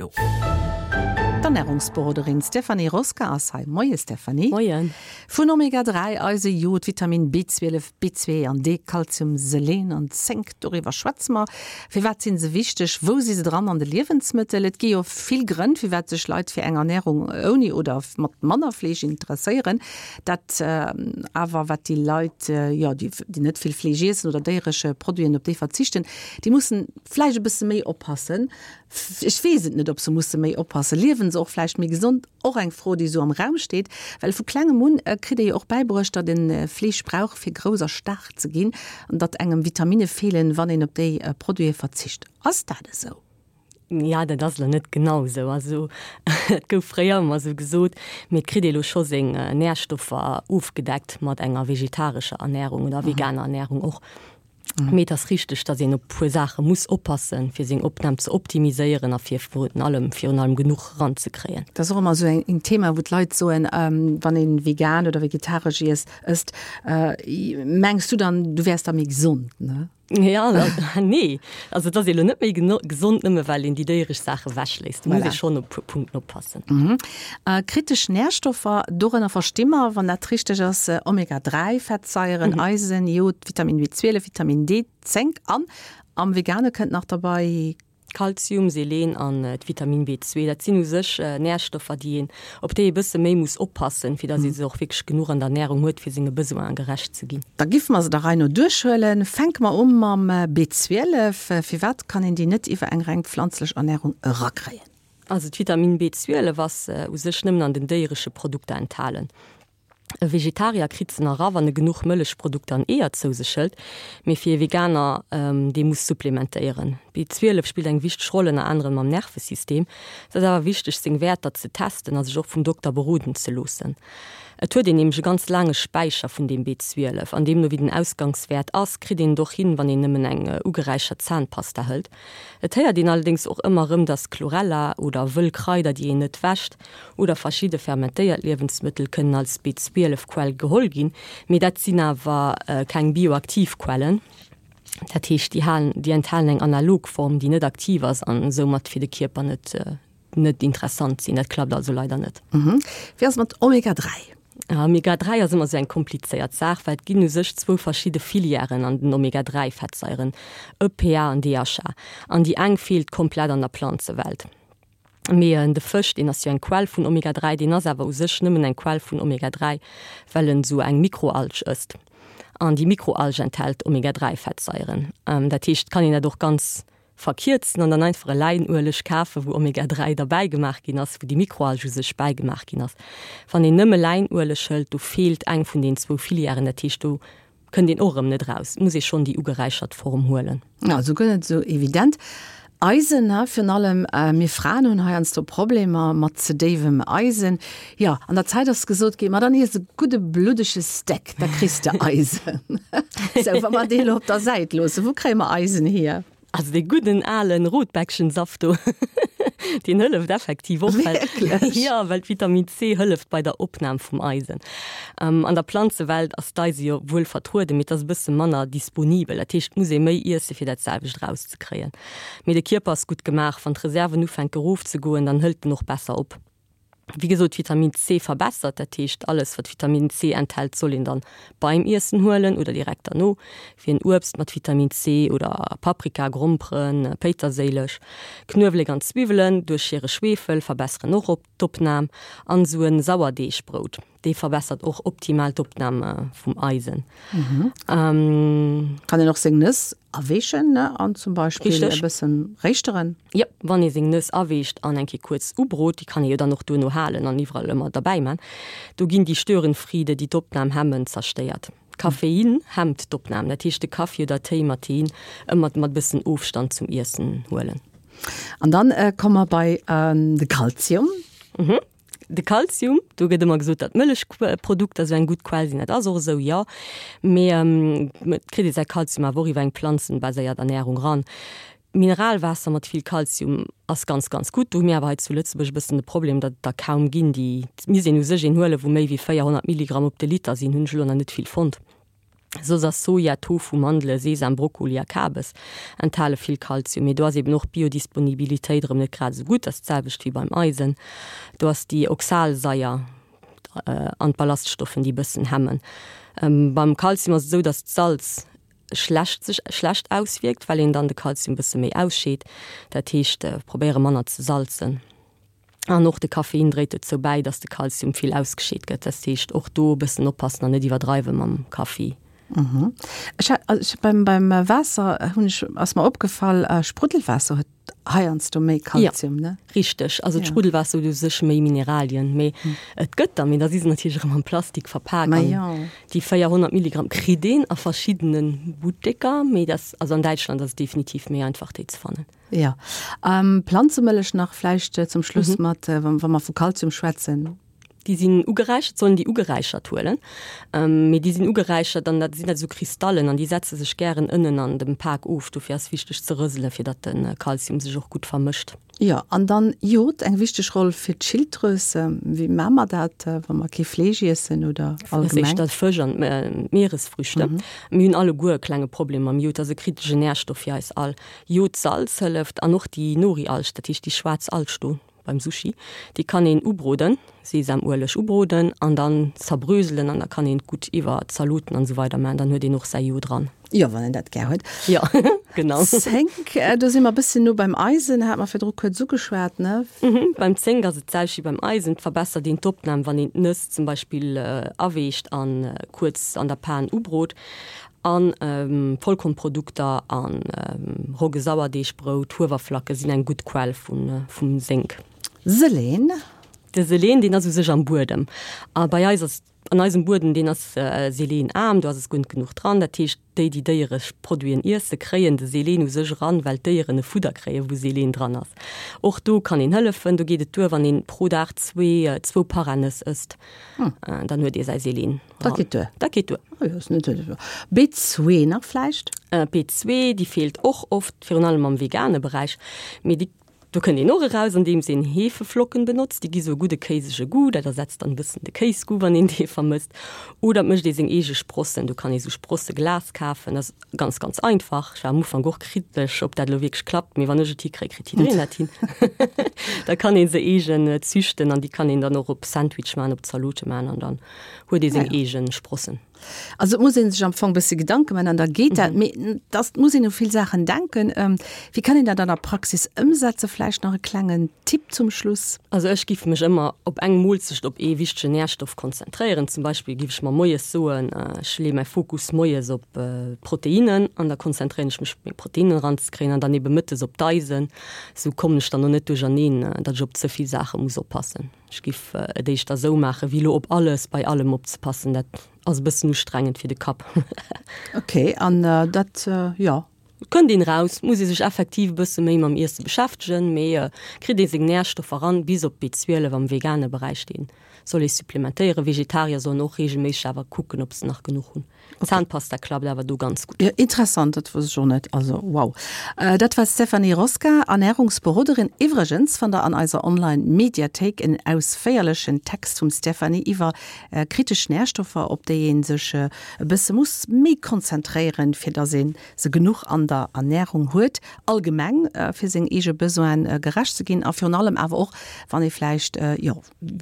elo. D'Ernärungsberoderin Stéphanie Rosca ass hei. Moie Stéphanie. Moien. Vun Omega 3, Eise, Jod, Vitamin B12, B2 an D, Kalzium, Selen an Zénk, doriwwer schwätze mer. Firwat si se wichteg? Wou si se dran an de Liewensmëttel? Et gi jo vill Grënn, firwat sech Leit fir eng Ernärung ouni oder mat manner Fleesch interesséieren. Dat awer, wat déi Leit, jo, déi net vill Fleesch iessen oder déieresche Produiten, op déi verzichten, déi mussen vläicht e bësse méi oppassen. Ech weess et net, ob se musse méi oppassen. Liewen se och vläicht méi gesond? Och eng Fro, déi esou am Raum steet. Well vu klengem un kritt ee jo och bäibruecht, datt ee Fleesch brauch, fir grouss a staark ze ginn an datt engem Vitaminne feelen, wann een op déi Produite verzicht. Ass dat esou? Ja, dat ass elo net genau esou. Also et gouf fréier ëmmer esou gesot, mee et kritt ee elo scho seng Närstoffer ofgedeckt mat enger vegetarescher Ernärung oder veganer Ernärung och. Mee et ass richteg, datt een op e puer Saache muss oppassen, fir seng Opnam ze optimiséieren a fir virun allem virun allem genuch eranzekréien. Dat ass och ëmmer esou en Thema, wou d'Leit soen, wann ee vegan oder vegetaresch iess ësst, mengs du dann, du wäers da méi gesond, ne? Ja, nee. Also et ass ee lo net méi gesond, nëmme well een déi déieresch Saache wechléisst. Do muss ee schonn op e puer Punkten oppassen. Kritesch Närstoffer, dorënner versti mer, wann dat richteg ass, Omega 3 Fettsaieren, Eisen, Jod, Vitamin B12, Vitamin D, Zénk an am Vegane kënnt nach derbei Kalzium, Selen an d'Vitamin B2, dat sinn u sech Närstoffer, déi een, op déi ee bësse méi muss oppassen, fir datt ee se och wierklech genuch an der Ernärung huet, fir senge Besoine gerecht ze ginn. Da giffe mer se der Rei no duerchhuelen. Fänke mer u mam B12. Firwat kann een déi net iwwer eng reng pflanzlech Ernärung erakréien? Also d'Vitamin B12 ass u sech nëmmen an den déieresche Produkter enthalen. E Vegetarier kritt se nach era wann e genuch Mëllechprodukter an Eeër zou sech hëlt, mee fir e Veganer, dee muss supplementéieren. B12 spillt eng wichteg Roll ënner anerem am Nervesystem. Et ass awer wichteg seng Wäerter ze testen a sech och vum Dokter beroden ze loossen. Et huet een nämlech e ganz laange Späicher vun deem B12 an deemno wéi den Ausgangswäert ass, kritt een et och hin, wann een nëmmen eng ugeräichert Zahnpasta hëlt. Et héiert een allerdéngs och ëmmer erëm, dass Chlorella oder wëll Kraider, déi een net wäscht, oder verschidde fermentéiert Liewensmëttel kënnen als B12 Quell geholl ginn, mee dat sinn awer keng bioaktiv Quellen. Dat heescht, déi halen, déi enthalen eng analog Form, déi net aktiv ass an soumat fir de Kierper net net interessant sinn. Dat klappt also leider net. Wéi ass et mat Omega 3? Omega 3 ass ëmmer esou eng komplizéiert Saach, well et ginn u sech zwou verschidde Filièren an den Omega 3 Fettsaieren, EPA an DHA, an déi eng feelt komplett an der Planzewelt. Mee de Fësch, deen ass jo eng Quell vun Omega 3, deen ass awer u sech nëmmen eng Quell vun Omega 3, well en esou eng Mikroalg ësst. An déi Mikroalg enthält Omega 3 Fettsaieren. Dat heescht, et kann een dat och ganz verkierzen an dann einfach e Läinueleg kafen, wou Omega 3 derbäi gemaach ginn ass, wou déi Mikroalg u sech bäigemaach ginn ass. Wann een nëmme Läinueleg hëlt, do feelt eng vun den zwou Filièren, dat heescht do Kënnt een och erëm net eraus, muss ee schonn déi ugeräichert Form huelen. Also guer net esou evident. Eisen, ha, virun allem mir Fraen hunn heiansdo Problemer mat ze déiwem Eisen. Jo, an der Zäit ass gesot ginn, ma dann iess e gudde bluddege Steak, da kriss de Eisen. Sou, wa mer dee elo op der Säit loossen, wou kréie mer Eisen hier? Also dee gudden alen Rotbäckchensaft do, deen hëlleft effektiv och, well, Wierklech? jo, well d'Vitamin C hëlleft bei der Opnam vum Eisen. An der Planzewelt ass d'Eise jo wuel vertrueden, mee et ass e bësse manner disponibel. Dat heescht, et muss ee méi iesse fir dat selwecht erauszekréien. Mee de Kierper ass gutt gemaach, wann d'Reserven ufänke rofzegoen, dann hëlt en och besser op. Wéi gesot, Vitamin C verbessert, dat heescht alles wat Vitamin C enthält soll een dann beim Iessen huelen oder direkt derno, wéi en Uebst mat Vitamin C oder Paprika, Gromperen, Péiterséileg, Knuewelek an Zwiwwelen duerch hire Schwefel verbesseren och op d'Opnam an esou en Sauerdeegbrout, dee verbessert och optimal d'Opnam vum Eisen. Kann een och seng Nëss aweechen ne an zum Beispill e bëssen réischteren? Jop, wann ee seng Nëss aweecht an eng Kéier kuerz ubrot, déi kann ee jo dann och duerno halen an iwwerall ëmmer derbäi man, do ginn déi Störenfriede, déi d'Opnam hemmen, zerstéiert. Koffein hemmt d'Opnam, dat heescht de Kaffi oder Téi mat Tein ëmmer mat bëssen Ofstand zum Iessen huelen. An dann komme mer bei de Kalzium. De Kalzium, do gëtt ëmmer gesot, datt Mëllechprodukter esou eng gutt Quell sinn. Dat ass och esou, jo. Mee et kritt ee säi Kalzium awer och iwwer eng planzenbaséiert Ernärung ran. Mineralwaasser mat vill Kalzium ass ganz, ganz gutt. Do hu mir awer hei zu Lëtzebuerg e bëssen de Problem, datt et der kaum ginn. Déi, et misst een u sech een huelen, wou méi wéi 400 Milligramm op de Liter sinn, hunn ech elo nach net vill fonnt. Soss ass Soja, Tofu, Mandele, Sesam, Brokkoli a Kabes enthale vill Kalzium. Mee do ass eben och d'Biodisponibilitéit erëm net grad esou gutt, ass d'selwecht wéi beim Eisen. Do ass déi Oxalsaier an d'Ballaststoffen, déi e bëssen hemmen. Beim Kalzium ass et esou, datt d'Salz schlecht sech schlecht auswierkt, well een dann de Kalzium e bësse méi ausscheet. Dat heescht, probéiere manner ze salzen. An och de Koffein dréit dozou bäi, dass de Kalzium vill ausgescheet gëtt. Dat heescht, och do e bëssen oppassen an net iwwerdreiwe mam Kaffi. Ech hat, also beim, beim Waasser hunn ech, ass mer opgefall, Spruddelwaasser huet heiansdo méi Kalzium, ne? Jo, richteg. Also d'Spruddelwaasser huet u sech méi Mineralien, mee et gëtt der, mee da si se natierlech erëm am Plastik verpak. Ma jo. Déi 400 Milligramm kritt een a verschiddene Butteker, mee dat, also an Däitschland ass et definitiv méi einfach déi ze fannen. Jo. Planzemëllech nach vläicht zum Schluss mat, wa mer vu Kalzium schwätzen. Déi sinn ugeräichert, sollen déi ugeräichert huelen, mee déi sinn ugeräichert an dat sinn dat esou Kristallen an déi setze sech gären ënnen an dem Pak of. Dofir ass wichteg ze rëselen, fir datt de Kalzium sech och gutt vermëscht. Jo, an dann Jod, eng wichteg Roll fir d'Schilddrüs. Wéi maache mer dat, wa mer kee Fleesch iessen oder allgemeng? Dat ass éischter Fësch an Mieresfrüchte. Mir hunn alleguer e klenge Problem mam Jod, dat ass e kritesche Närstoff fir eis all. Jodsalz hëlleft an och déi Nori-Alg, dat heescht déi schwaarz Alg do beim Sushi, déi kann een ubroden, Sesamueleg ubroden an dann zerbröselen an da kann een et gutt iwwer Zaloten an esou weider maachen, dann huet een och säi Jod dran. Jo, wann een dat gär huet. Jo, genau. Zénk, do si mer e bësschen no beim Eisen, hat mer virdru kuerz ugeschwat, ne? Beim Zénk ass et d'selwecht wéi beim Eisen, et verbessert een d'Opnam, wann een d'Nëss zum Beispill aweecht an kuerz an der Pan ubrot. An Vollkornprodukter an Rogge-Sauerdeegbrout, Huewerflacke sinn eng gutt Quell vum Sénk. Selen? De Selen, deen ass u sech am Buedem. A bei eis ass, an eisem Buedem, deen ass selenaarm, do ass es guer net genuch dran. Dat heescht, déi, déi déieresch Produiten iesse, kréien de Selen u sech eran, well d'Déieren e Fudder kréien, wou Selen dran ass. Och do kann een hëllefen. Do geet et duer, wann een pro Dag zwee, zwou Paranëss ësst, dann huet ee säi Selen. Dat geet duer. Dat geet duer. Oh jo, ass net esou. B2 nach vläicht? B2, déi feelt och oft, virun allem am vegane Beräich. Mee déi, do kënnt een och eraus, andeems een Hefeflocken benotzt. Déi gi sou e gudde kéisege Goût. Dat ersetzt dann e bëssen de Kéisgoût, wann een dee vermësst. Oder et mécht ee seng eege Sprossen. Do kann ee sou Sprosseglas kafen. Dat ass ganz, ganz einfach. Ech war am Ufank och kritesch, ob dat elo wierklech klappt. Mee wann ech et hikréi, kritt jiddereen dat hin. Da kann ee se eegen züchten an déi kann een dann och op Sandwich maachen, op Zalote maachen an dann huet ee seng eegen Sprossen. Also et muss ee sech am Fong e bësse Gedanke man an da geet dat. Mee dass et muss een u vill Saachen denken. Wéi kann een dat an der Praxis ëmsetzen? Vläicht nach e klengen Tipp zum Schluss? Also ech giff mech ëmmer op eng Moolzecht op ee wichtegen Nährstoff konzentréieren. Zum Beispill giff ech mer moies soen, ech leeë mäi Fokus moies op d'Proteinnen an da konzentréieren ech mech meng Proteinnen eranzekréien an dann ebe mëttes op d'Eisen. Esou kommen ech dann och net duercherneen, datt ech op ze vill Saache muss oppassen. Ech giff et éischter esou maachen, wéi elo op alles, bei allem opzepassen. Dat ass e bëssen ustrengend fir de Kapp. Ok, an dat, jo. Et kënnt een eraus, muss ee sech effektiv e bësse méi mam Iesse beschäftegen, mee kritt ee seng Närstoffer eran, bis op B12 am vegane Beräich, dee soll ee supplementéieren. Vegetarier sollen och reegelméisseg awer kucken, ob se nach genuch hunn. Zahnpasta klappt awer do ganz gutt. Jo, interessant, dat wosst ech och net. Also wow. Dat war d'Stéphanie Rosca, Ernärungsberoderin. Iwwregens fannt der an eiser Online Mediathéik en ausféierlechen Text vum Stéphanie iwwer kritesch Närstoffer, op déi ee sech e bësse muss méi konzentréieren, fir dass ee se genuch an der Ernärung huet, allgemeng fir seng eege Besoine gerecht ze ginn a virun allem awer och wann ee vläicht, jo.